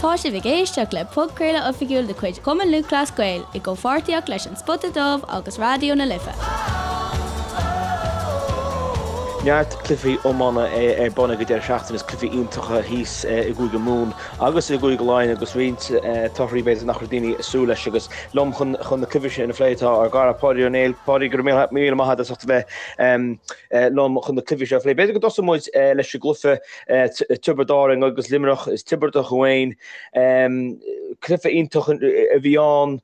Tá sibh ag éisteacht le podchraoladh oifigiúil de chuid Chumann Lúthchleas Gael i gcomhpháirtíocht leis An Spota Dubh agus Raidió na Life. Neart cluichí iomána ar bun ag an deireadh seachtaine is cluichí iontacha thíos i gCúige Mumhan agus i gCúige Laighean agus roinnt torthaí b'fhéidir nach raibh daoine ag súil leis agus liom chun na cluichí sin a phlé tá ár gcara Páidí Ó Néill. Páidí, go raibh míle maith agat as ucht a bheith liom chun na cluichí seo a phlé. B'fhéidir go dtosóidh muid leis an gcluiche Tiobraid Árann agus Luimneach is Tiobradach amháin. Cluiche iontach a bhí ann.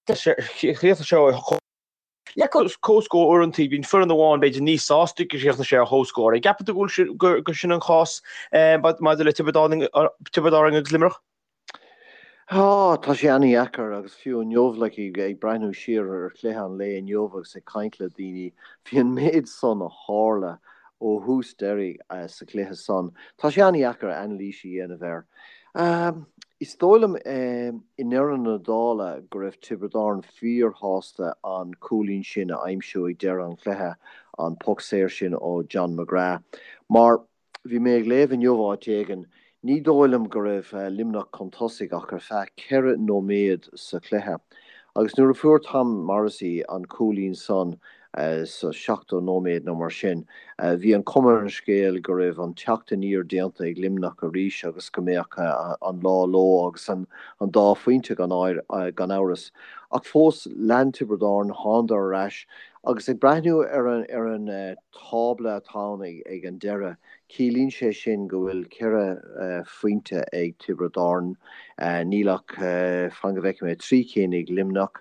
Chríochnaigh sé ar Le comhscór uaireanta, bíonn foireann amháin b'fhéidir níos sásta go gcríochnaigh sé ar chomhscór. An gceapann tú go bhfuil gur sin an cás maidir le Tiobraid Árann agus Luimneach? Á, tá sé an-dheacair agus fiú inniu, like, ag breathnú siar ar chluiche an lae inniu agus ag caint le daoine, bhí an méid san a tharla ó thús deiridh sa chluiche san. Tá sé an-dheacair anailís a dhéanamh air. Is dóigh liom i ndeireadh na dála go raibh Tiobraid Árann fíorshásta an cúilín sin a aimsiú ag deireadh an chluiche, an poc saor sin ó John McGrath, mar Bhí mé ag léamh inniu áit éigin, ní dóigh liom go raibh Luimneach chun tosaigh ach ar feadh 4 nóiméad sa chluiche. Agus nuair a fuair Tom Morrissey an cúilín san sa 70 nóiméad nó mar sin, bhí an chuma ar an scéal go raibh an teacht aniar déanta ag Luimneach arís agus go mbeadh an lá leo agus an dá phointe gan amhras. Ach fós, lean Tiobraid Árann, thánadar ar ais agus ag breathnú ar an tábla atá ann ag an deireadh, ciallaíonn sé sin go bhfuil 4 phointe ag Tiobraid Árann, níl ach, fan go bhfeicfidh mé, 3 cinn ag Luimneach.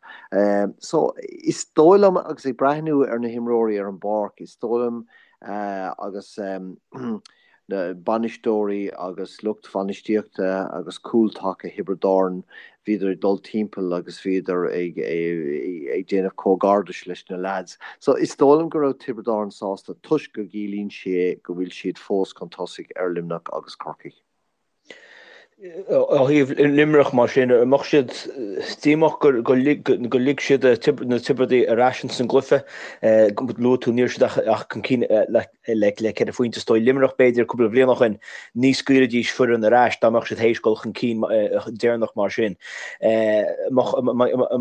So, is dóigh liom, agus ag breathnú ar na himreoirí ar an bpáirc, is dóigh liom agus na bainisteoirí agus lucht bhainistíochta agus cúl taca Thiobraid Árann, bhíodar ag dul timpeall agus bhíodar ag ag déanamh comhghairdis leis na leaids. So is dóigh liom go raibh Tiobraid Árann sásta toisc go gciallaíonn sé go bhfuil siad fós chun tosaigh ar Luimneach agus Corcaigh. Ó thaobh Luimneach mar sin, an mbeadh siad díomách gur lig siad na Tiobradaigh ar ais ins an gcluiche? Luaigh tú ní raibh siad ach chun cinn le 4 phointe. Is dóigh Luimneach b'fhéidir cúpla bliain ó shin ní scaoilfidís foireann ar ais dá mbeadh siad théis dul chun cinn deireanach mar sin. An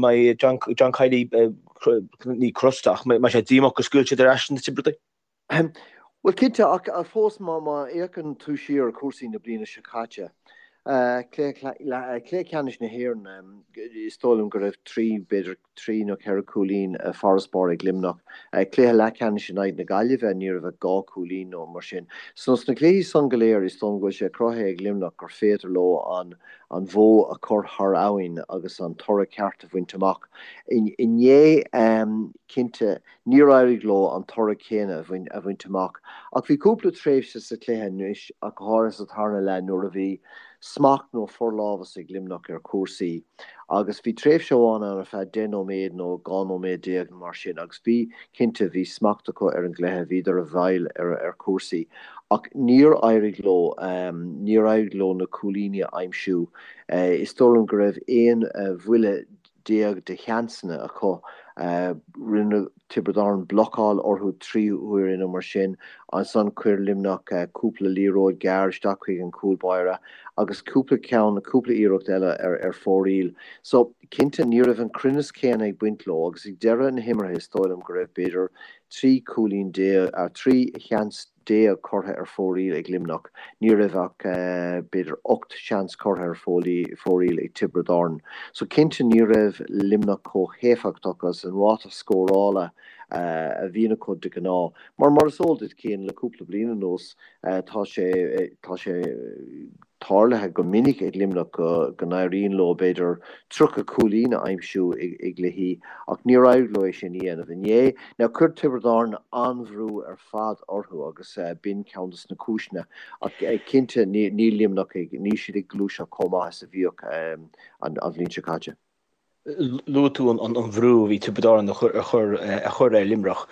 mbeidh John Kiely ní crosta ach mbeidh sé díomách gur scaoil siad ar ais na Tiobradaigh? Bhuel, cinnte, ach fós má fhéachann tú siar ar chúrsaí na bliana seo caite, cluiche ceannais na hÉireann, is dóigh liom go raibh trí, b'fhéidir trí nó ceithre chúilín farasbarr ag Luimneach. Cluiche leathcheannais in aghaidh na Gaillimhe, ní raibh ach dhá chúilín nó mar sin. So sna cluichí san go léir, is dóigh liom go bhfuil sé cruthaithe ag Luimneach gur féidir leo an an bhó a chur thar abhainn agus an toradh ceart a bhaint amach. Inné, cinnte, Níor éirigh leo an toradh céanna a bhaint amach ach bhí cúpla tréimhse sa chluiche anois, ach go háirithe sa tarna leath nuair a bhí smacht nó forlámhas ag Luimneach ar chúrsaí agus bhí tréimhse amháin ann ar feadh 10 nóiméad nó 12 nóiméad nó mar sin agus bhí, cinnte, bhí smacht acu ar an gcluiche, bhíodar i bhfeighil ar chúrsaí ach níor éirigh leo, níor éirigh leo na cúilíní a aimsiú. Is dóigh liom go raibh 11 bhuille de sheansanna acu. Rinne Tiobraid Árann blocáil orthu 3 huaire nó mar sin. Ansan chuir Luimneach cúpla liathróid ghearr isteach chuig an chúl báire agus cúpla ceann, cúpla iarracht eile ar fóraoil. So, cinnte, ní raibh an cruinneas céanna ag baint leo agus ag deireadh na himeartha is dóigh liom go raibh b'fhéidir 13 cúilín, 13 sheans curtha ar fóraoil ag Luimneach. Ní raibh ach b'fhéidir 8 seans curtha ar fóraoil ag Tiobraid Árann. So cinnte ní raibh Luimneach chomh héifeachtach agus an ráta scórála a bhíonn acu de ghnáth. Mar mar is eol duit Cian, le cúpla bliain anuas tá sé tá sé tarlaithe go minic ag Luimneach go n-éiríonn leo b'fhéidir 30 cúilín a aimsiú i gcluichí ach níor éirigh leo é sin a dhéanamh inné. Now chuir Tiobraid Árann an-bhrú ar fad orthu agus b'in ceann de na cúiseanna ach cinnte níl Luimneach ag, níl siad ag gluaiseacht chomh maith is a bhíodh an bhliain seo caite. Luaigh tú an bhrú a bhí Tiobraid Árann a chur ar Luimneach.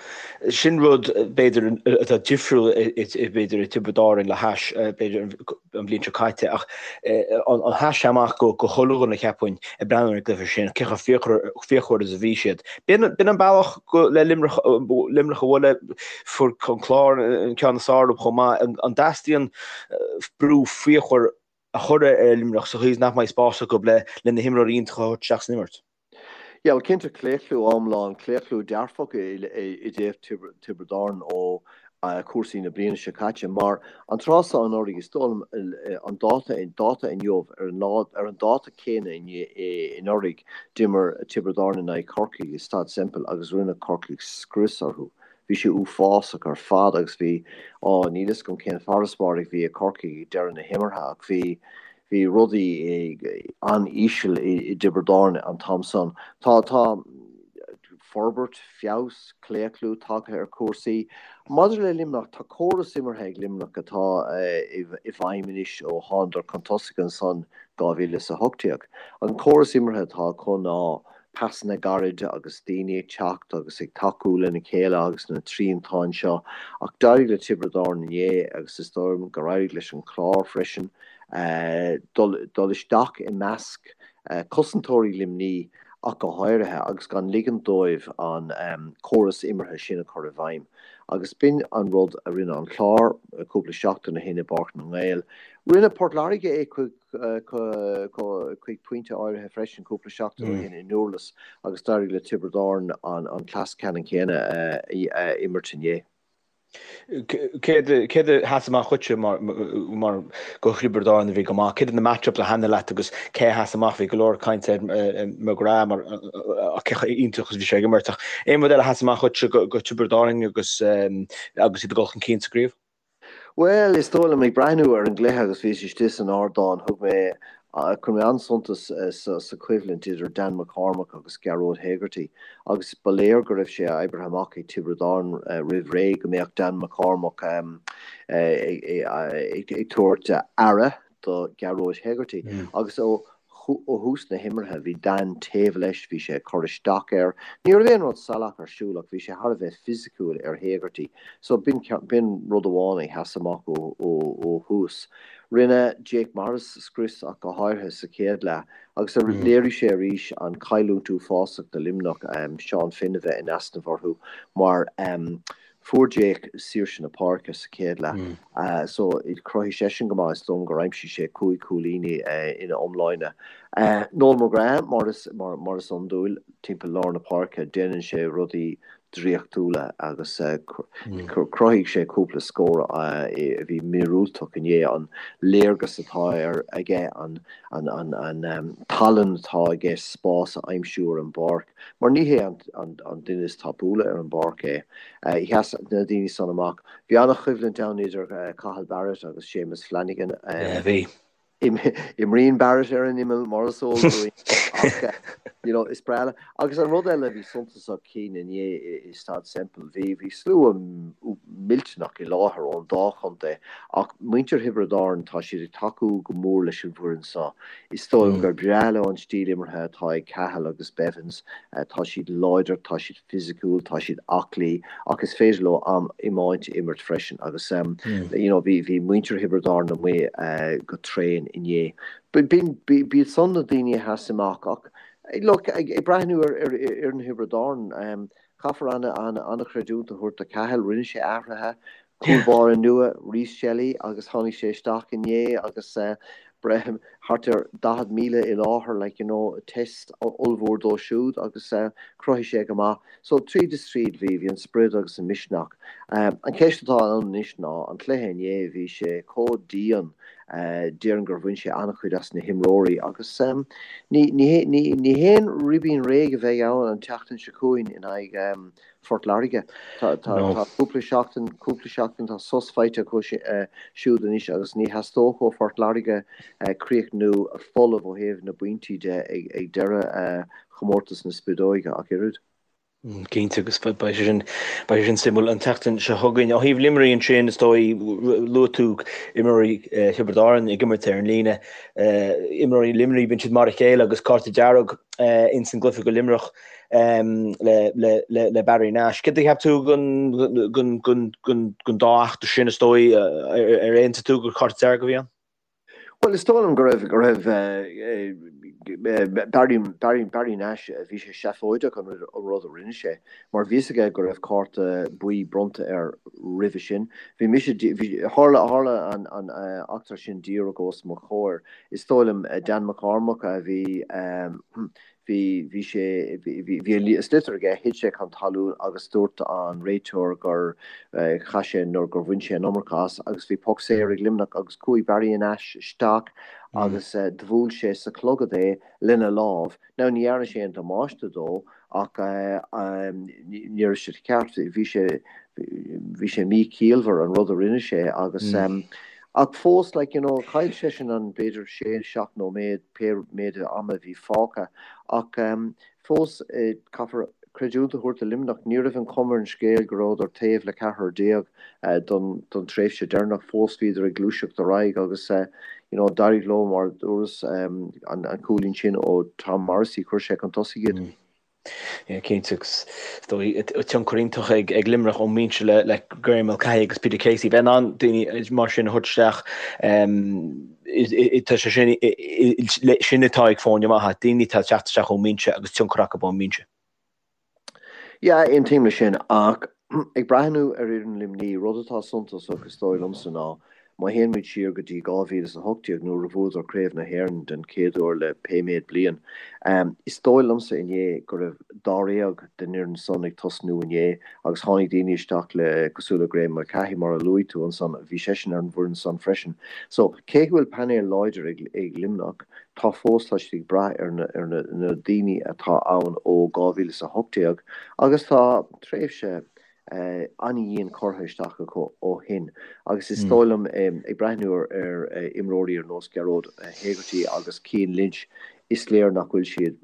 Sin rud, b'fhéidir, atá difriúil b'fhéidir i Tiobraid Árann le hais b'fhéidir an bhliain seo caite ach an sheas sé amach go chuile dhuine cheapfainn ag breathnú ar an gcluiche sin, cé chomh fíochmhar is a bhí siad. B'in an bealach le Luimneach a bhualadh, fuair an Clár an ceann is fearr orthu chomh maith. An dteastaíonn brú fíochmhar? a chur ar Luimneach sa chaoi is nach mbeidh spás acu le na himreoirí iontacha a thabhairt isteach san imirt. Yeah, well cinnte claochlú iomlán, claochlú dearfach i dtaobh Tiobraid Árann ó chúrsaí na bliana seo caite mar an tráth seo anuraidh, is dóigh liom an dáta, dáta inniu, ar an lá, ar an dáta céanna anuraidh d'imir Tiobraid Árann in aghaidh Chorcaigh i Staid Semple agus rinne Corcaigh scrios orthu. Bhí sé uafásach ar fad agus bhí, á, níl fhios agam cén farasbarr a bhí ag Corcaigh ag deireadh na himeartha ach bhí, Bhí rudaí an-íseal i dTiobraid Árann an t-am san. Tá, tá forbairt, feabhas, claochlú tagtha ar chúrsaí. Maidir le Luimneach, tá córas imeartha ag Luimneach atá i bhfeidhm anois ó thánadar chun tosaigh ansan 2018. An córas imeartha atá acu ná pasanna gairide agus daoine ag teacht agus ag tacú lena chéile agus na triantáin seo ach d'éirigh le Tiobraid Árann inné agus is dóigh liom gur éirigh leis an Chlár freisin dul isteach i measc cosantóirí Luimní ach go háirithe agus gan ligean dóibh an córas imeartha sin a chur i bhfeidhm. Agus b'in an rud a rinne an Clár cúpla seachtain ó shin i bPáirc na nGael. Rinne Port Láirge é chuig chuig pointe áirithe freisin cúpla seachtain ó shin i nDurlas agus d'éirigh le Tiobraid Árann an cleas ceannann céanna a imirt inné. Céard a sheas amach dhuitse mar do Thiobraid Árann a bhí go maith? Céard iad na match-ups a thaitnigh leat agus cé a sheas amach? Bhí go leor cainte ar McGrath mar cé chomh iontach is a bhí sé ag imirt ach aon rud eile a sheas amach dhuitse do Thiobraid Árann agus agus iad ag dul chun cinn sa gcraobh? Bhuel, is dóigh liom, ag breathnú ar an gcluiche agus bhíos istigh san ardán, thug mé, chuir mé an-suntas sa choimhlint idir Dan McCormack agus Gearóid Hegarty agus ba léir go raibh sé oibrithe amach ag Tiobraid Árann roimh ré go mbeadh Dan McCormack ag tabhairt aire do Ghearóid Hegarty agus ó thús na himeartha bhí Dan taobh leis, bhí sé ag cur isteach air. Ní raibh aon rud salach ar siúl ach bhí sé thar a bheith fisiciúil ar Hegarty so b'in rud amháin a sheas amach ó thús. Rinne Jake Morris scrios ach go háirithe sa chéad leath agus léirigh sé arís an chailliúint uafásach do Luimneach Seán Finn a bheith in easnamh orthu mar Fuair Jake saoirse na páirce sa chéad leath so chruthaigh seisean go maith, is dóigh liom gur aimsigh sé 5 chúilíní ina iomláine. Noel McGrath, mar is mar is iondúil, timpeall lár na páirce, déanann sé rudaí draíochtúla agus chruthaigh sé cúpla scór a bhí míorúilteach inné, an léargas atá aige, an tallann atá aige spás a aimsiú ar an bpáirc. Mar ní hé an duine is tapúla ar an bpáirc é. Sheas na daoine san amach. Bhí an-choimhlint ann idir Cathal Barrett agus Séamus Flanagan. Yeah, bhí. Imríonn Barrett ar an imeall, mar is eol dúinn, ach you know, is breá le. Agus an rud eile a bhí suntasach Cian inné i Staid Semple, bhí bhí slua millteanach i láthair ón dá chontae ach muintir Thiobraid Árann, tá siad ag tacú go mór leis an bhfoireann seo. Is dóigh liom gur breá leo an stíl imeartha atá ag Cathal agus Bevins. Tá siad láidir, tá siad fisiciúil, tá siad aclaí ach is féidir leo an iomáint a imirt freisin agus you know bhí bhí muintir Thiobraid Árann amuigh go tréan inné. B'in b'iad san na daoine a sheas amach ach look ag breathnú ar ar fhoireann Thiobraid Árann caithfear an-chreidiúint a thabhairt do Cathal, rinne sé athruithe, Cúl báire nua, Rhys Shelly, agus tháinig sé isteach inné agus thart ar 40,000 i láthair, like you know, test ollmhór dó siúd agus chruthaigh sé go maith. So tríd is tríd bhí, bhí an sprid agus an misneach. An cheist atá ann anois ná, an cluiche inné, bhí sé chomh dian, déarfainn gur bhain sé an-chuid as na himreoirí agus ní, ní, ní, ní haon ribín réidh a bheidh ann an tseachtain seo chugainn in aghaidh Phort Láirge. Tá cúpla seachtain, cúpla seachtain, tá sos faighte acu siúd anois agus ní theastódh ó Phort Láirge críochnú folamh ó thaobh na bpointí de ag deireadh chomórtas na Spideoige ach oiread. Cinnte, agus beidh sé sin, beidh sé sin suimiúil an tseachtain seo chugainn. Ó thaobh Luimnigh ansin, is dóigh, luaigh tú imreoirí Thiobraid Árann ag imirt ar an líne. Imreoirí Luimnigh, bíonn siad mar a chéile agus cárta dearg ins an gcluiche do Luimneach. le Barry Nash. Céard a cheap tú den dá eachtra sin, is dóigh, ar aontaigh tú gur cárta dearg a bhí ann? Bhuel, is dóigh liom go raibh, go raibh Barry, Barry, Barry Nash, bhí sé seafóideach an rud a rinne sé, mar bhí fhios aige go raibh cárta buí bronnta air roimhe sin. Bhí mise, bhí, tharla, tharla an, an eachtra sin díreach os mo chomhair. Is dóigh liom Dan McCormack a bhí, Bhí, bhí sé, bhí, bhí an sliotar aige, thit sé chun talún agus dúirt an réiteoir gur chaith sé nó gur bhain sé an iomarca as agus bhí poc saor ag Luimneach agus chuaigh Barry Nash isteach agus do bhuail sé sa chlogad é lena lámh. Now ní dhearna sé aon damáiste dó ach ní raibh sé ceart, bhí sé, bhí sé míchiallmhar an rud a rinne sé agus ach fós like you know chaill seisean an b'fhéidir sé seacht nóiméad pé méid ama a bhí fágtha ach fós caithfear creidiúint a thabhairt do Luimneach ní raibh an chuma ar an scéal go rabhadar taobh le ceathrar déag don don tréimhse deireanach fós bhíodar ag gluaiseacht ar aghaidh agus you know d'éirigh leo mar a dúras an cúilín sin ó Tom Morrissey chuir sé chun tosaigh iad. Yeah, cinnte, agus is dóigh tionchar iontach ag Luimneach ón mbinse le Graeme Mulcahy agus Peter Casey. Bheith in ann daoine mar sin a thabhairt isteach, tá sé sin, sin atá ag foirne maithe, daoine atá ag teacht isteach ón mbinse agus tionchar acu ón mbinse. Yeah, aontaím leis sin, ach ag breathnú ar fhoireann Luimnigh, rud atá suntasach is dóigh liomsa ná Má théann muid siar go dtí 2018 nuair a bhuadar Craobh na hÉireann den chéad uair le pé méid bliain, is dóigh liomsa inné go raibh dáréag den fhoireann san ag tosnú inné agus tháinig daoine isteach le cosúil le Graeme Mulcahy mar a luaigh tú ansan, bhí seisean ar an bhfoireann san freisin. So, cé go bhfuil painéal láidir ag Luimneach, tá fós, tá siad ag brath ar na ar na daoine atá ann ó 2018 agus tá tréimhse an-dhian curtha isteach acu ó shin agus is dóigh liom, ag breathnú ar imreoirí ar nós Gearóid Hegarty agus Cian Lynch, is léir nach bhfuil siad,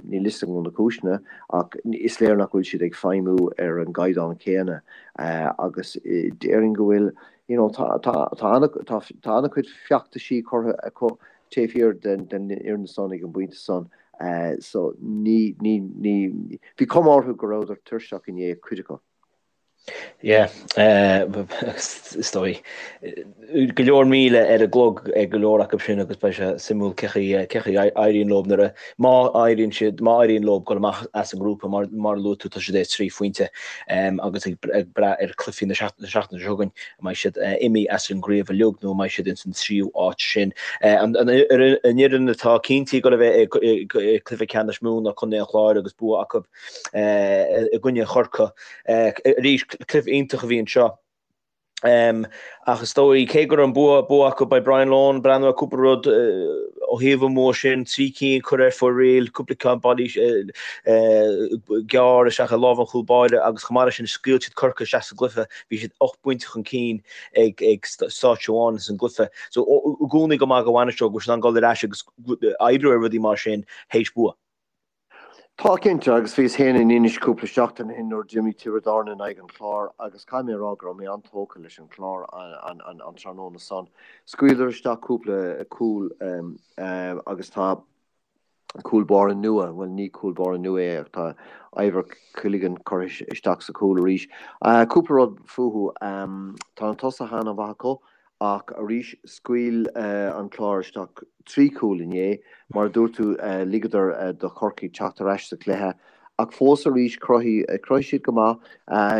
níl fhios agam na cúiseanna, ach is léir nach bhfuil siad ag feidhmiú ar an gcaighdeán céanna agus déarfainn go bhfuil, you know, tá tá an-chuid feachtaisí curtha acu taobh thiar den fhoireann san ag an bpointe san. So ní, ní, ní, bhí cuma orthu go rabhadar tuirseach inné, cuid acu. Yeah, is dóigh. Go leor míle ar an gclog ag go leor acu sin agus beidh sé suimiúil cé chaoi, cé chaoi a éiríonn leo nuair a, má éiríonn siad, má éiríonn leo dul amach as an ngrúpa mar, mar a luaigh tú tá siad ar 3 phointe agus ag brath ar chluichí na seachtaine seo chugainn. An mbeidh siad imithe as an gcraobh uilig nó an mbeidh siad ins an tríú áit sin? An fhoireann atá cinnte ag dul a bheith i gcluiche ceannais Mumhan ná Contae an Chláir agus bua acu i gcoinne Chorcaí. Arís, cluiche iontach a bhí anseo. Ach is dóigh, cé go raibh an bua bua acu, beidh Brian Lohan ag breathnú ar cúpla rud ó thaobh an bhua sin, 3 cinn curtha ar fóraoil, cúpla ceann bailí gearr isteach i lámh an chúl báire agus chomh maith leis sin scaoil siad Corcaigh isteach sa gcluiche. Bhí siad 8 bpointe chun cinn ag stáitse amháin ins an gcluiche. So i gcónaí go maith do bhainisteoir go bhfuil siad in ann dul ar ais agus oibriú ar rudaí mar sin théis bua. Tá cinnte, agus bhíos féin in Inis cúpla seachtain ó shin nuair a d'imir Tiobraid Árann in aghaidh an Chláir agus caithfidh mé a rá go raibh mé an-tógtha leis an Chlár an tráthnóna san. Scaoileadar isteach cúpla cúl agus tá cúl báire nua, bhuel ní cúl báire nua é ach tá Ivor Quilligan curtha isteach sa chúl arís. Cúpla rud fúthu, tá na tosaithe an-mhaith acu ach arís scaoil an Clár isteach 3 chúl inné. Mar a dúirt tú ligeadar do Chorcaigh teacht ar ais sa chluiche ach fós arís chruthaigh siad go maith.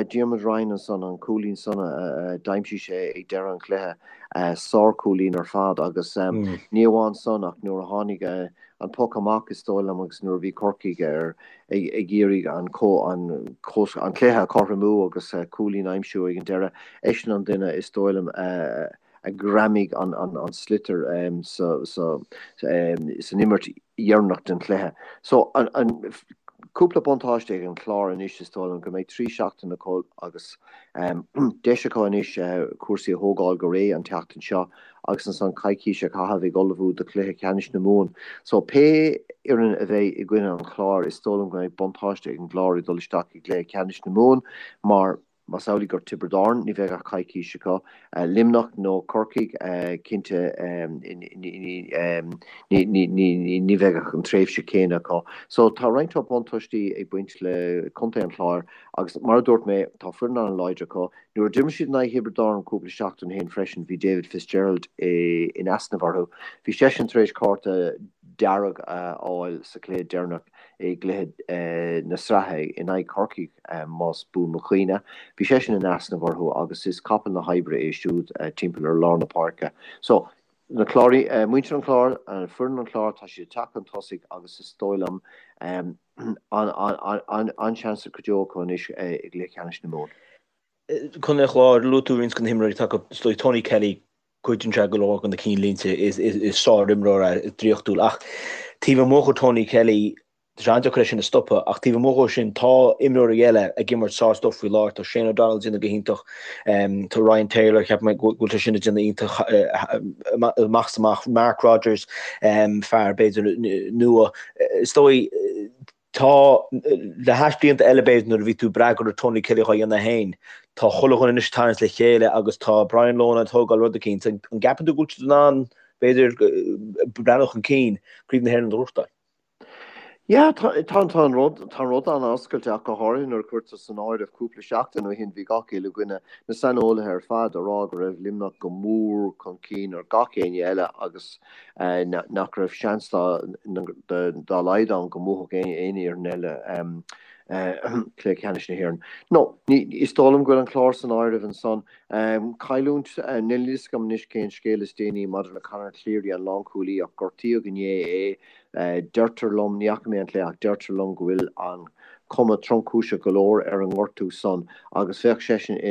Diarmuid Ryan ansan, an cúilín san a d'aimsigh sé ag deireadh an chluiche, sár-chúilín ar fad agus ní amháin san ach nuair a tháinig an poc amach is dóigh liom agus nuair a bhí Corcaigh ar ag iarraidh an an cluiche a chothromú agus cúilín a aimsiú ag an deireadh, eisean an duine is dóigh liom a a ghreamaigh an sliotar san imirt dheireanach den chluiche. So, an cúpla buntáiste ag an Chlár anois is dóigh liom go mbeidh 3 seachtain acu agus deis acu anois cúrsaí a thógáil go réidh an tseachtain seo agus ansan coicís a chaitheamh ag ullmhú do chluiche ceannais na Mumhan. So, pé fhoireann a bheidh i gcoinne an Chláir is dóigh liom go mbeidh buntáiste ag an gClár ag dul isteach i gcluiche ceannais na Mumhan mar. Más amhlaidh gur Tiobraid Árann, ní bheidh ach coicís acu. Luimneach nó Corcaigh, cinnte ní bheidh ach an tréimhse céanna acu. So tá roinnt buntáistí ag baint le Contae an Chláir agus mar a dúirt mé, tá foireann an-láidir acu. Nuair a d'imir siad in aghaidh Thiobraid Árann cúpla seachtain ó shin freisin, bhí David Fitzgerald in easnamh orthu. Bhí seisean tar éis cárta dearg a fháil sa chluiche deireanach i gcluiche na sraithe in aghaidh Chorcaí, más buan mo chuimhne. Bhí seisean in easnamh orthu agus is capall na hoibre é siúd timpeall ar lár na páirce. So, na Cláraigh, muintir an Chláir, foireann an Chláir, tá siad ag teacht chun tosaigh agus is dóigh liom an-seans go deo acu anois i gcluiche ceannais na Mumhan. Contae an Chláir, luaigh tú roinnt de na himreoirí atá acu, is dóigh Tony Kelly, goideann sé go leor de na cinnlínte, is sár-imreoir é, draíochtúil. Ach taobh amuigh de Tony Kelly, tá sé an-deacair é sin a stopadh, ach taobh amuigh dhó sin, tá imreoirí eile ag imirt sár-stuif faoi láthair. Tá Shane O'Donnell ag déanamh go hiontach, tá Ryan Taylor, ceapaim go bhfuil sé sin ag déanamh iontach amach is amach, Mark Rodgers, fear b'fhéidir nua. Is dóigh, Tá, le hais blianta eile b'fhéidir nuair a bhí tú ag brath go raibh Tony Kelly dhá dhéanamh féin, tá chuile dhuine anois ag tarraingt le chéile agus tá Brian Lohan ag tógáil rud eicínt. An gceapann tú go bhfuil siad in ann, b'fhéidir, breathnú chun cinn, Craobh na hÉireann a ghnóthachtáil? Yeah, tá, tá, tá an rud, tá an rud an-oscailte ach go háirithe nuair a cuirtear san áireamh cúpla seachtain ó shin bhí gach uile dhuine, na saineolaithe ar fad, ag rá go raibh Luimneach go mór chun cinn ar gach éinne eile agus nach raibh seans dá laghad ann go mbuafadh aon fhoireann eile cluiche ceannais na hÉireann. No, is dóigh liom go bhfuil an Clár san áireamh ansan. Cailliúint, níl a fhios agam anois cén scéal is déanaí maidir le Conor Cleary, an lánchúlaí, ach gortaíodh inné é. Deirtear liom, ní fhaca mé an cluiche ach deirtear liom go bhfuil an cuma tromchúiseach go leor ar an ngortú san agus bheadh seisean,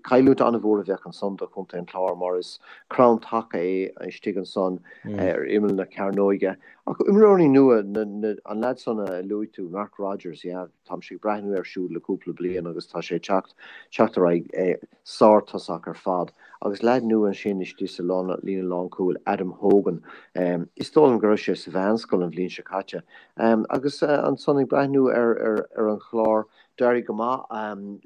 cailliúint an-mhór a bheadh ansan do chontae an Chláir mar is crann taca é istigh ansan ar imeall na cearnóige. Ach imreoirí nua, an leaid san a luaigh tú, Mark Rodgers, yeah, táimse ag breathnú air siúd le cúpla bliain agus tá sé ag teacht, teacht ar aghaidh. Sár-tosach ar fad. Agus leaid nua ansin istigh sa líne lánchúil, Adam Hogan. Is dóigh liom go raibh sé sa mheánscoil an bhliain seo caite. Agus ansan ag breathnú ar an Chlár, d'éirigh go maith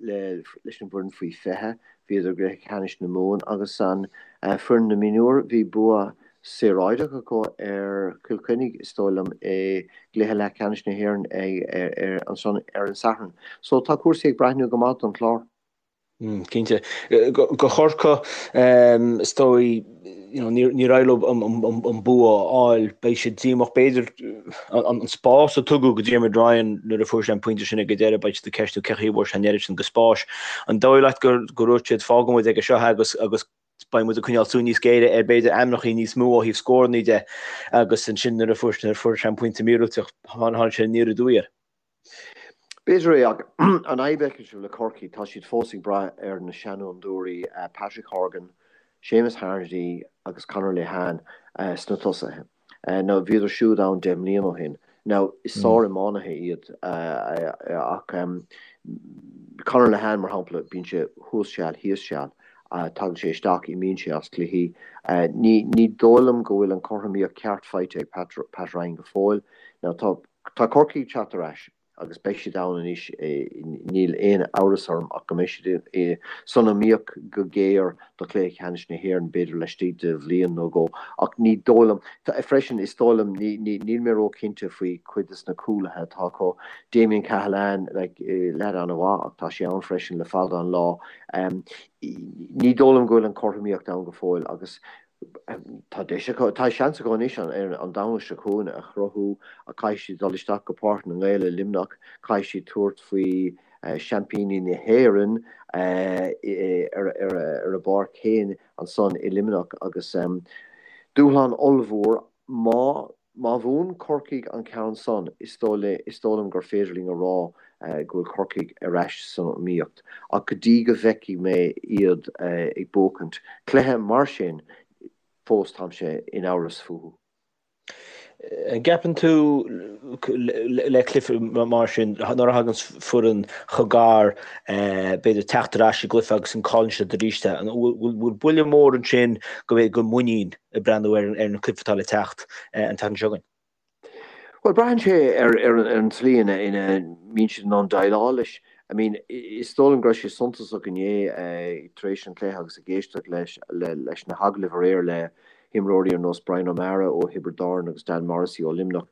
leis an bhfoireann faoi 20, bhíodar i gcluiche ceannais na Mumhan agus an foireann na mionúr, bhí bua saoráideach acu ar Chill Chainnigh, is dóigh liom, i gcluiche leathcheannais na hÉireann ansan ar an Satharn. So tá cúrsaí ag breathnú go maith don Chlár. Cinnte. Do Chorcaigh, is dóigh, you know, níor éirigh leo an bua a fháil. Beidh siad díomách. B'fhéidir an spás a tugadh go Diarmuid Ryan nuair a fuair sé an pointe sin ag an deireadh, beidh siad ag ceistiú cén chaoi a bhfuair sé an oiread sin de spáis. An dóigh leat gur dhúirt siad fágfaidh muid aige seo é agus agus beidh muid ag coinneáil súil níos géire ar b'fhéidir ainmneacha níos mó ó thaobh scóranna de agus ansin nuair a fuair sé an pointe míorúilteach tháinig sé aniar aduaidh air. B'fhéidir é, ach an fhadhb a fheicimse le Corcaigh, tá siad fós ag brath ar na seanfhondúirí Patrick Horgan, Seamus Harnedy agus Conor Lehane sna tosaithe. Now bhíodar siúd ann 10 mbliana ó shin. Now is sár-iománaithe iad ach Conor Lehane, mar shampla, bíonn sé thuas seal, thíos seal. Tagann sé isteach, imíonn sé as cluichí. Ní dóigh liom go bhfuil an chothromaíocht ceart faighte ag Pat Ryan go fóill. Now tá Tá Corcaigh ag teacht ar ais agus beidh siad ann anois, níl aon amhras orm ach go mbeidh siad san iomaíocht go géar do chluiche ceannais na hÉireann, b'fhéidir laistigh de bhliain nó dhó. Ach ní dóigh liom, freisin, is dóigh liom, níl mé róchinnte faoi chuid de na cúlaithe atá acu. Damien Cahalane, like, leaid an-mhaith ach tá sé ann freisin le fada an lá. Ní dóigh liom go bhfuil an chothromaíocht ann go fóill agus Tá deis acu, tá seans acu anois ar an Domhnach seo chugainn a chruthú ach caithfidh siad dul isteach go Páirc na nGael i Luimneach, caithfidh siad tabhairt faoi seaimpíní na hÉireann ar a bpáirc féin ansan i Luimneach agus dúshlán ollmhór má Má bhuann Corcaigh an ceann san, is dóigh liom gur féidir linn a rá go bhfuil Corcaigh ar ais san iomaíocht. Ach go dtí go bhfeicfidh mé iad ag buachaint cluiche mar sin, fós táimse in amhras fúthu. An gceapann tú le cluiche mar sin, nuair a thagann foireann chomh gar, b'fhéidir teacht ar ais i gcluiche agus an cailleann siad arís é, an bhfuil buille mór ansin go bhféadfadh go muinín ag breathnú ar an cluiche atá le teacht an tseachtain seo chugainn. Bhuel, braitheann sé ar an tslí ina mbíonn siad in ann déileáil leis. I mean, is dóigh liom go raibh sé suntasach inné tar éis an chluiche agus ag éisteacht leis leis na hagallaimh aréir le himreoirí ar nós Brian O'Meara ó Thiobraid Árann agus Dan Morrissey ó Luimneach.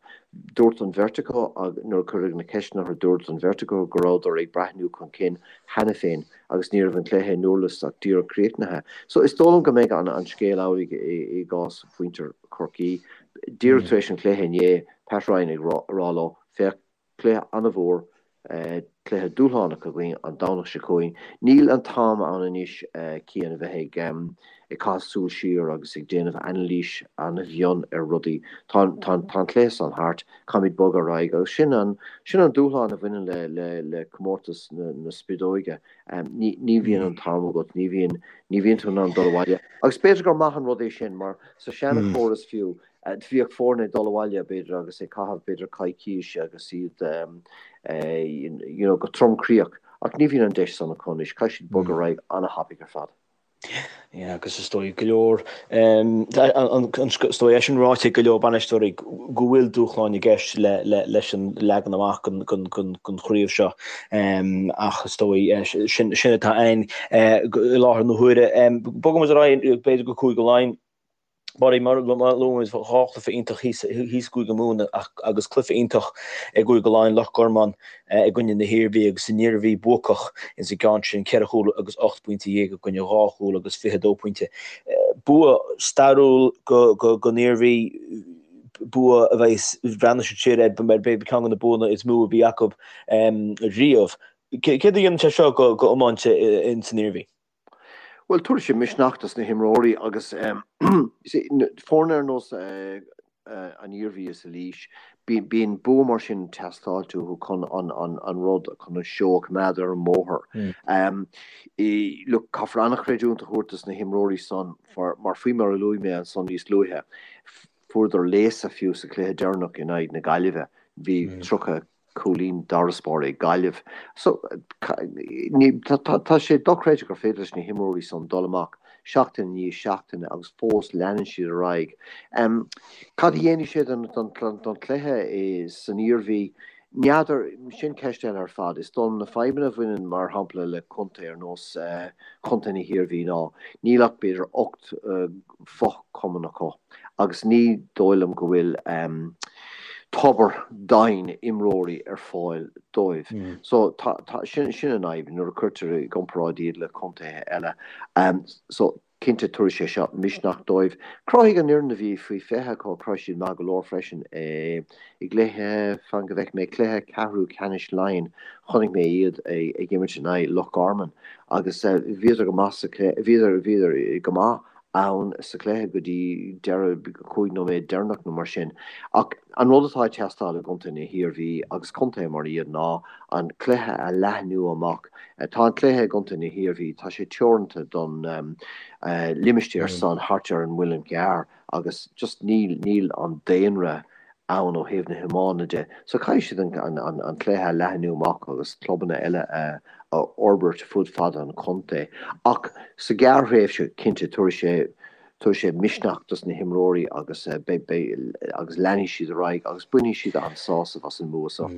Dúirt an bheirt acu, nuair a cuireadh na ceisteanna orthu, dúirt an bheirt acu go rabhadar ag breathnú chun cinn cheana féin agus ní raibh an cluiche i nDurlas ach díreach críochnaithe. So is dóigh liom go mbeidh an scéal amhlaidh i gcás mhuintir Chorcaí. Díreach tar éis an chluiche inné, Pat Ryan ag rá leo, féach, Cluiche an-mhór, cluiche dúshlánach againn an Domhnach seo chugainn. Níl an t-am ann anois Cian a bheith ag caitheamh súil siar agus ag déanamh anailís an-mhion ar rudaí. Tá an cluiche san thart, caithfimid bogadh ar aghaidh agus sin an sin an dúshlán a bhaineann le le le comórtas na na spideoige. Ní ní bhíonn an t-am agat, ní bhíonn ní bhíonn tú in ann dul abhaile. Agus b'fhéidir gur maith an rud é sin mar sa seana-chóras fiú, Bhíodh foirne ag dul abhaile, b'fhéidir, agus ag caitheamh, b'fhéidir, coicís agus iad, you know, go tromchroíoch. Ach ní bhíonn an deis san acu anois. Caithfidh siad bogadh ar aghaidh an-thapaidh ar fad. Yeah, agus is dóigh go leor, is dóigh é sin ráite ag go leor bainisteoirí go bhfuil dúshláin i gceist leis an leagan amach den chraobh seo. Ach is dóigh sin atá ann i láthair na huaire. Bogaimis ar aghaidh, b'fhéidir go Cúige Laighean. Mar a luaigh muid, 2 chluiche iontach thíos i gCúige Mumhan agus cluiche iontach i gCúige Laighean, Loch Garman i gcoinne na hIarmhí agus an Iarmhí buacach ins an gceann sin, 4 chúl agus 18 bpointe i gcoinne 2 chúl agus 22 pointe. Bua stairiúil don Iarmhí, bua a bheidh, breathnóidh siad siar air mar b'fhéidir ceann de na buanna is mó a bhí acu riamh. Céard a dhéanann sé seo go iomáint ins an Iarmhí? Bhuel, tabharfaidh sé misneach dos na himreoirí agus foirne ar nós an Iarmhí is Laois, bíonn bua mar sin ag teastáilt uathu chun an rud, chun an seó a choimeád ar an mbóthar. Look, caithfear an-chreidiúint a thabhairt dos na himreoirí san mar faoi mar a luaigh mé ansan níos luaithe, fuaireadar léasadh fiú sa chluiche deireanach in aghaidh na Gaillimhe. Bhí 30 cúilín d'fharasbarr ag Gaillimh. So, tá sé dochreidte gur féidir leis na himreoirí san dul amach seachtain i ndiaidh seachtaine agus fós leanann siad ar aghaidh. Cad a dhéanfaidh sé don chluiche san Iarmhí? N'fheadar, sin ceist eile ar fad. Is dóigh liom na fadhbanna a bhaineann mar shampla le contae ar nós chontae na hIarmhí ná níl ach b'fhéidir 8 fochumann acu agus ní dóigh liom go bhfuil tobar doimhin imreoirí ar fáil dóibh. So tá, tá, sin, sin an fhadhb nuair a cuirtear i gcomparáid iad le contaetha eile. So cinnte tabharfaidh sé seo misneach dóibh. Chruthaigh an fhoireann a bhí faoi 20 acu, chruthaigh siad maith go leor freisin i gcluiche, fan go bhfeicfidh mé, cluiche ceathrú ceannais Laighean, chonaic mé iad ag imirt in aghaidh Loch Garman agus bhíodar go maith sa chluiche, bhíodar, bhíodar go maith ann sa chluiche go dtí deireadh 5 nóiméad deireanach nó mar sin. Ach an rud atá ag teastáil i gcontae na hIarmhí agus contaetha mar iad ná an cluiche a leathnú amach. Tá an cluiche i gcontae na hIarmhí, tá sé teoranta don limistéar san thart ar an Muileann gCearr agus just níl, níl an daonra ann ó thaobh na hiomána de. So caithfidh siad an cluiche a leathnú amach agus clubanna eile a fhorbairt fud fad an chontae. Ach sa ghearrthréimhse, cinnte, tabharfaidh sé tabharfaidh sé misneach dos na himreoirí agus beidh beidh agus leanfaidh siad ar aghaidh agus bainfidh siad an-sásamh as an mbua seo.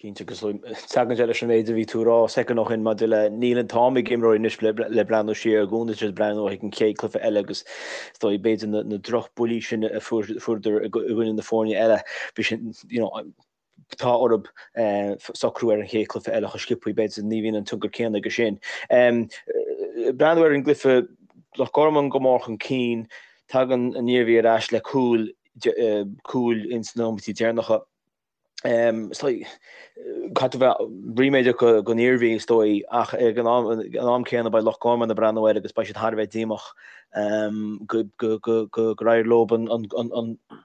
Cinnte, agus tagann sé leis an méid a bhí tú a rá soicind ó shin maidir le níl an t-am ag imreoirí anois le breathnú siar i gcónaí tá siad ag breathnú chuig an chéad cluiche eile agus is dóigh b'fhéidir na drochbhuillí sin a fuaireadar i gcoinne na foirne eile, bhí sin, you know, tá orthu socrú ar an chéad cluiche eile chomh sciobtha, b'fhéidir ní bhíonn an tionchar céanna aige sin. Breathnú ar an gcluiche, Loch Garman go mór chun cinn, tagann an Iarmhí ar ais le cúl, cúl ins na nóiméidí deireanacha. Is dóigh, caithfidh tú bheith ríméadach don Iarmhí, is dóigh, ach ag an am céanna beidh Loch Garman ag breathnú air agus beidh siad thar a bheith díomách gur éirigh leo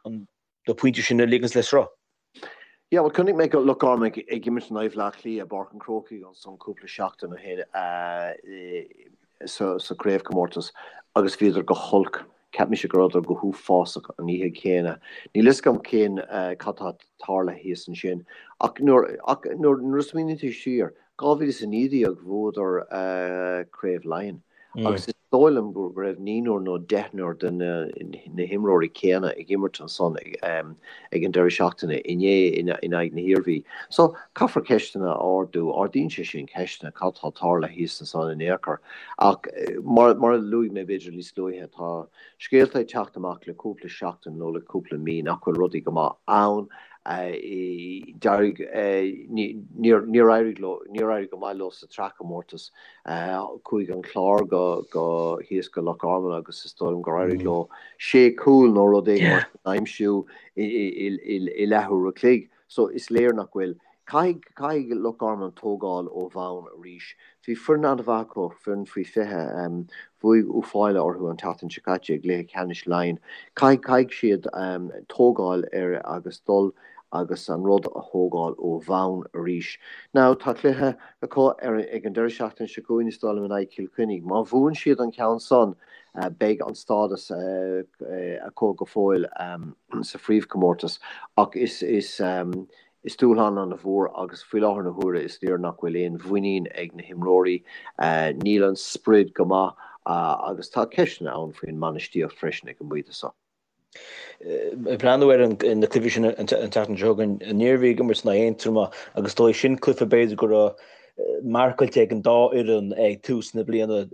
na pointí sin a ligint le sruth. Yeah, bhuel, chonaic mé Loch Garman ag imirt in aghaidh Bhaile Átha Cliath i bPáirc an Chrócaigh ansan cúpla seachtain ó shin sa chraobhchomórtas agus bhíodar go holc. Cheap mise go rabhadar go huafásach an oíche chéanna. Níl fhios agam cén cad tá tarlaithe thíos ansin. Ach nuair ach nuair nuair a smaoiníonn tú siar, 2019 bhuadar Craobh Laighean. Agus is. dóigh liom go raibh naonúr nó deichniúr de na himreoirí céanna ag imirt ansan ag an deireadh seachtaine inné in aghaidh na hIarmhí. So, caithfear ceisteanna a ardú. Ardaíonn sé sin ceisteanna, cad tá tarlaithe thíos ansan in aon chor. Ach mar a luaigh mé b'fhéidir níos luaithe, tá scéalta ag teacht amach le cúpla seachtain nó le cúpla mí nach bhfuil rudaí go maith ann. D'éirigh, níor éirigh leo, níor éirigh go maith leo sa tsraithchomórtas. Chuaigh an Clár go, go, thíos go Loch Garman agus is dóigh liom gur éirigh leo sé chúl nó rud éigin mar sin a aimsiú i leathuair a chloig. So is léir nach bhfuil. Caithfidh, caithfidh Loch Garman tógáil ó bhonn arís. Bhí foireann an-mhaith acu, foireann faoi 20. Bhuaigh Uíbh Fhailí orthu an tseachtain seo caite i gcluiche ceannais Laighean. Caithfidh, caithfidh siad tógáil ar agus dul agus an rud a thógáil ó bhonn arís. Now tá cluiche acu ar ag an deireadh seachtaine seo chugainn is dóigh liom in aghaidh Chill Chainnigh. Má bhuann siad an ceann san beidh an stádas acu go fóill sa phríomhchomórtas ach is is is dúshlán an-mhór agus faoi láthair na huaire is léir nach bhfuil aon mhuinín ag na himreoirí, níl an sprid go maith agus tá ceisteanna ann faoin mbainistíocht freisin ag an bpointe seo. Ag breathnú ar na cluichí sin an tseachtain seo chugainn, an Iarmhí ag imirt in aghaidh Aontroma agus is dóigh sin cluiche b'fhéidir go raibh marcáilte ag an dá fhoireann ag tús na bliana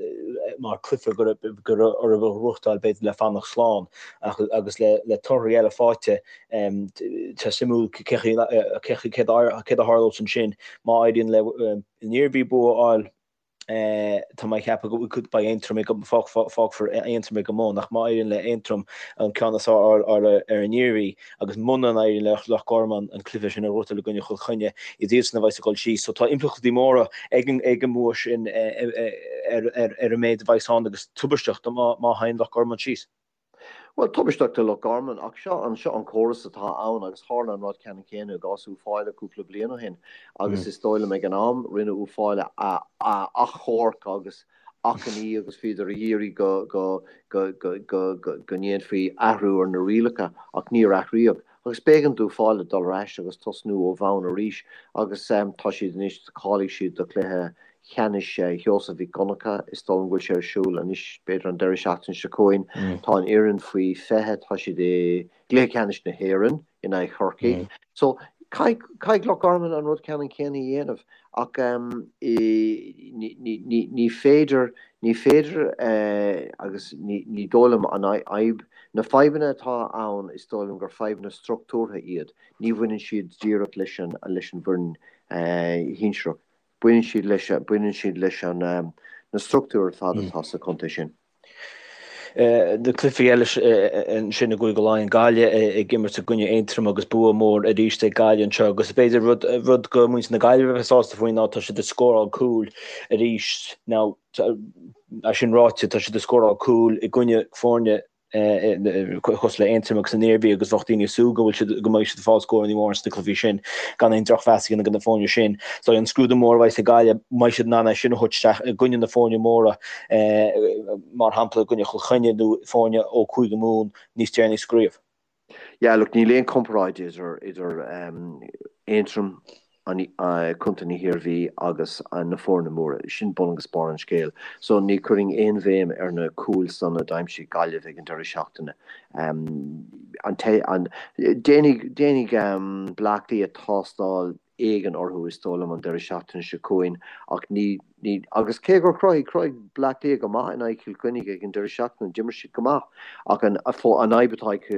mar cluiche go raibh orthu a ghnóthachtáil b'fhéidir le fanacht slán ach agus le torthaí eile faighte tá suimiúil cé céard a tharlós ansin má éiríonn le an Iarmhí bua a fháil. Tá mé ag ceapadh go beidh Aontroim ag, fágfar Aontroim ag an mbun, ach má éiríonn le Aontroim an ceann is fearr a fháil ar an Iarmhí agus muna n-éiríonn le Loch Garman an cluiche sin a ghnóthachtáil i gcoinne Chill Chainnigh, is iadsan a bheas ag dul síos. So tá impleachtaí móra ag an mbua sin ar an méid a bheas ann agus tubaisteach má théann Loch Garman síos. Bhuel, tubaisteach do Loch Garman, ach seo an, seo an córas atá ann agus tharla an rud ceannann céanna i gcás Uíbh Fhailí cúpla bliain ó shin agus is dóigh liom ag an am rinne Uíbh Fhailí achomharc agus achainí agus bhíodar ag iarraidh go, go, go, go, go, go, go ndéanfaí athrú ar na rialacha ach níor athraíodh. Agus b'éigean d'Uíbh Fhailí dul ar ais agus tosnú ó bhonn arís agus tá siad anois, cháiligh siad do chluiche cheannais Sheosaimh Mhic Dhonncha, is dóigh liom go bhfuil sé ar siúl anois, b'fhéidir an deireadh seachtaine seo chugainn. Tá an fhoireann faoi 20, tá siad i gcluiche ceannais na hÉireann in aghaidh Chorcaigh. So, caithfidh, caithfidh Loch Garman an rud ceannann céanna a dhéanamh ach ní féidir, ní féidir agus ní dóigh liom an fhadhb, na fadhbanna atá ann is dóigh liom gur fadhbanna struchtúrtha iad, ní bhaineann siad díreach leis an leis an bhfoireann shinsearach, baineann siad leis baineann siad leis an na struchtúir ar fad atá sa chontae sin. Na cluichí eile ansin i gCúige Laighean, Gaillimh ag imirt i gcoinne Aontroim agus bua mór arís ag Gaillimh anseo agus b'fhéidir rud rud go muintir na Gaillimhe a bheith sásta faoi ná tá siad ag scóráil cúil arís. Now é sin ráite tá siad ag scóráil cúil i gcoinne foirne cosúil le Aontroim agus an Iarmhí agus bheadh daoine ag súil go bhfuil siad go mbeidh siad ag fáil scóranna móra sna cluichí sin gan aon drochmheas a dhéanamh do na foirne sin. So an scrúdú mór a bheidh ag Gaillimh, mbeidh siad in ann é sin a thabhairt isteach i gcoinne na foirne móra mar shampla i gcoinne Chill Chainnigh nó foirne ó Chúige Mumhan níos deireanaí sa gcraobh. Yeah, look, níl aon comparáid idir idir Aontroim, Contae na hIarmhí agus na foirne móra. Sin bun agus barr an scéil. So ní chuirfinn aon bhéim ar na cúil san a d'aimsigh Gaillimh ag an deireadh seachtaine. An an déanfaidh déanfaidh Bleá Cliath tástáil éigin orthu is dóigh liom an deireadh seachtaine seo chugainn ach ní, ní, agus cé gur chruthaigh, chruthaigh Bleá Cliath go maith in aghaidh Chill Chainnigh ag an deireadh seachtaine, d'imir siad go maith ach an, an fhadhb atá ag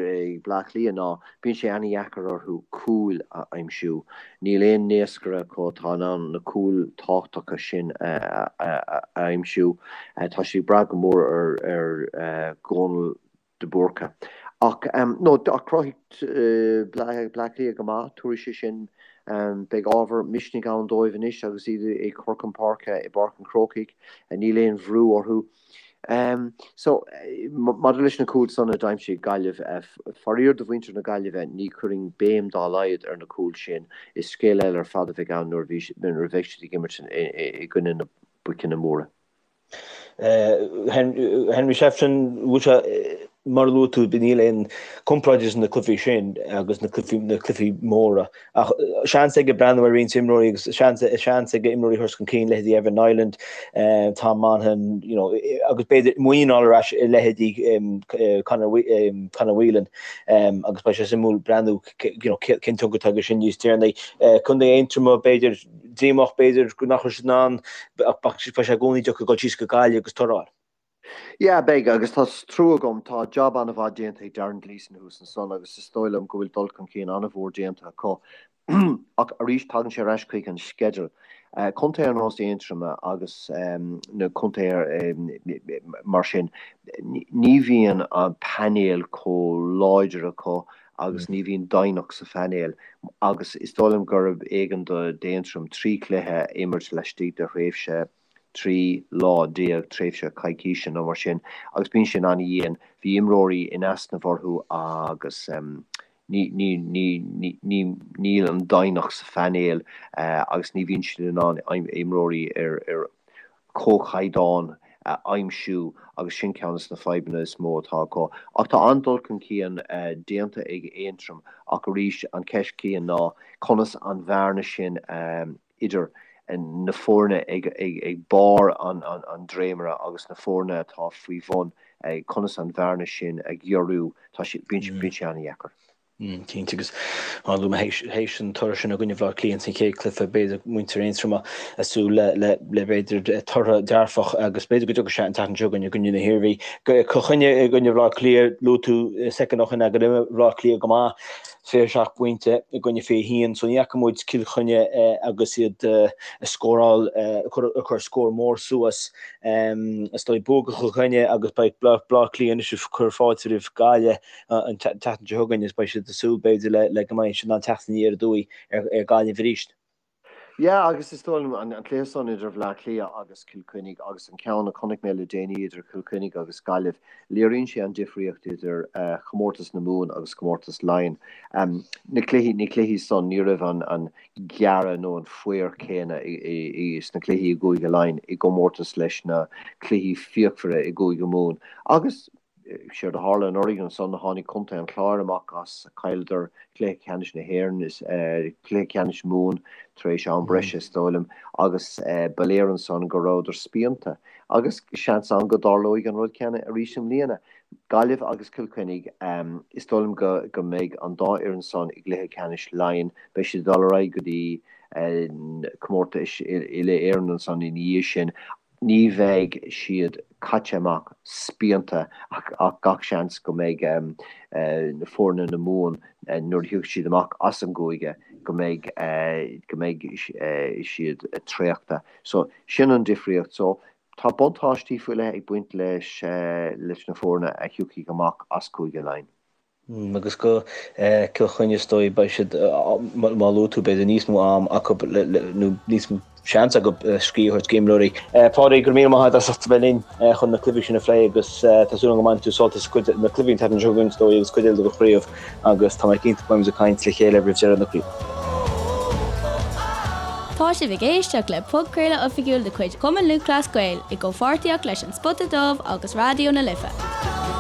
Bleá Cliath ná bíonn sé ana-dheacair orthu cúil a aimsiú. Níl aon naoscaire acu atá in ann na cúil tábhachtacha sin a, a, a aimsiú. Tá siad ag brath go mór ar, ar Dhónal de Búrca. Ach, no, ach chruthaigh Bleá Cliath go maith, tabharfaidh sé sin, beidh ábhar misnigh ann dóibh anois agus iad ag cur chun páirce i bPáirc an Chrócaigh, níl aon bhrú orthu. So, maidir leis na cúil san a d'aimsigh Gaillimh, faraor do mhuintir na Gaillimhe, ní chuirfinn béim dá laghad ar na cúil sin, is scéal eile ar fad a bheidh ann nuair a bheidh siad ag imirt i gcoinne na boiceanna móra. Henry Shefflin, bhfuil sé. Mar a luaigh tú, níl aon comparáid idir na cluichí sin agus na cluichí, na cluichí móra. Ach seans aige breathnú ar roinnt imreoirí agus seans, seans aige imreoirí a thabhairt chun cinn, leithéidí Evan Niland, Tom Monaghan, you know, agus b'fhéidir muinín a fháil ar ais i leithéidí Conor, Conor Whelan. Agus beidh sé suimiúil breathnú, you know, cén tionchar atá aige sin níos deireanaí. Contae Aontroma, b'fhéidir, díomách, b'fhéidir nach raibh siad in ann, ach beidh sé i gcónaí deacair dul síos go Gaillimh agus toradh a fháil. Yeah, beidh, agus tá trua agam, tá jab an-mhaith déanta ag Darren Gleeson thuas ansan agus is dóigh liom go bhfuil dul chun cinn an-mhór déanta acu. Ach arís, tagann sé ar ais chuig an sceideal. Contae ar nós Aontroma agus na contaetha mar sin, ní bhíonn an painéal chomh láidir acu agus ní bhíonn doimhneacht sa phainéal agus is dóigh liom gurb éigean d'Aontroim 3 chluiche a imirt laistigh de thréimhse 13 lá, tréimhse coicíse nó mar sin, agus bíonn sin an-dhian. Bhí imreoirí in easnamh orthu agus ní, ní, ní, ní, níl an doimhneacht sa phainéal agus ní bhíonn siad in ann imreoirí ar, ar chomhchaighdeán a aimsiú agus sin ceann de na fadhbanna is mó atá acu. Ach tá an-dul chun cinn déanta ag Aontroim ach arís an cheist chéanna ná conas an bhearna sin a idir na foirne ag barr an dréimire agus na foirne atá faoi bhun, conas an bhearna sin a ghiorrú, tá sé, bíonn sé an-dheacair. Cinnte, agus mar a luaigh mé théis an toradh sin i gcoinne Bhaile Átha Cliath san chéad cluiche, b'fhéidir muintir Aontroma ag súil le le le b'fhéidir toradh dearfach agus b'fhéidir go dtiocfaidh sé an tseachtain seo chugainn i gcoinne na hIarmhí. Cill Chainnigh i gcoinne Bhaile Átha Cliath, luaigh tú soicind ó shin go raibh Baile Átha Cliath go maith. 27 bpointe i gcoinne 21 so ní fhaca muid Cill Chainnigh agus iad ag scóráil, ag cur scór mór suas. Is dóigh bua do Chill Chainnigh agus beidh Baile Átha Cliath anois ag cur fáilte roimh Gaillimh an tseachtain seo chugainn agus beidh siad ag súil b'fhéidir le go mbeidh siad in ann teacht aniar aduaidh ar Ghaillimh arís. Yeah, agus is dóigh liom an cluiche san idir Bhleá Cliath agus Cill Chainnigh agus an ceann a chonaic mé le déanaí idir Cill Chainnigh agus Gaillimh, léiríonn sé an difríocht idir chomórtas na Mumhan agus comórtas Laighean. Na cluichí, na cluichí san, ní raibh an an gearradh nó an faobhar céanna sna cluichí i gCúige Laighean i gcomórtas leis na cluichí fíochmhara i gCúige Mumhan. Agus Séard a tharla anuraidh ansan, tháinig Contae an Chláir amach as, chailleadar cluiche ceannais na hÉireann, is cluiche ceannais Mumhan tar éis am breise is dóigh liom, agus ba léir ansan go rabhadar spíonta. Agus seans ann go dtarlóidh an rud céanna arís i mbliana. Gaillimh agus Cill Chainnigh, is dóigh liom go go mbeidh an dá fhoireann san i gcluiche ceannais Laighean, beidh siad ag dul ar aghaidh go dtí comórtais uile-Éireann ansan ina dhiaidh sin. Ní bheidh siad caite amach spíonta ach gach seans go mbeidh na foirne na Mumhan nuair a thiocfaidh siad amach as an gcúige go mbeidh go mbeidh siad traochta. So sin an difríocht. So tá buntáistí faoi leith ag baint leis leis na foirne a thiocfaidh amach as Cúige Laighean. Agus go Cill Chainnigh is dóigh beidh siad, mar a luaigh tú, b'fhéidir níos mó am acu nó níos mó seans acu scíth a thabhairt d'imreoirí. Pádraig, go raibh míle maith agat as ucht a bheith linn chun na cluichí sin a phlé agus tá súil agam go mbainfidh tú sult as cuid de na cluichí an tseachtain seo chugainn is dóigh agus cuid eile den chraobh agus tá mé cinnte go mbeimid ag caint le chéile roimh deireadh na craoibhe. Tá sibh ag éisteacht le podchraoladh oifigiúil de chuid Chumann Lúthchleas Gael i gcomhpháirtíocht leis An Spota Dubh agus Raidió na Life.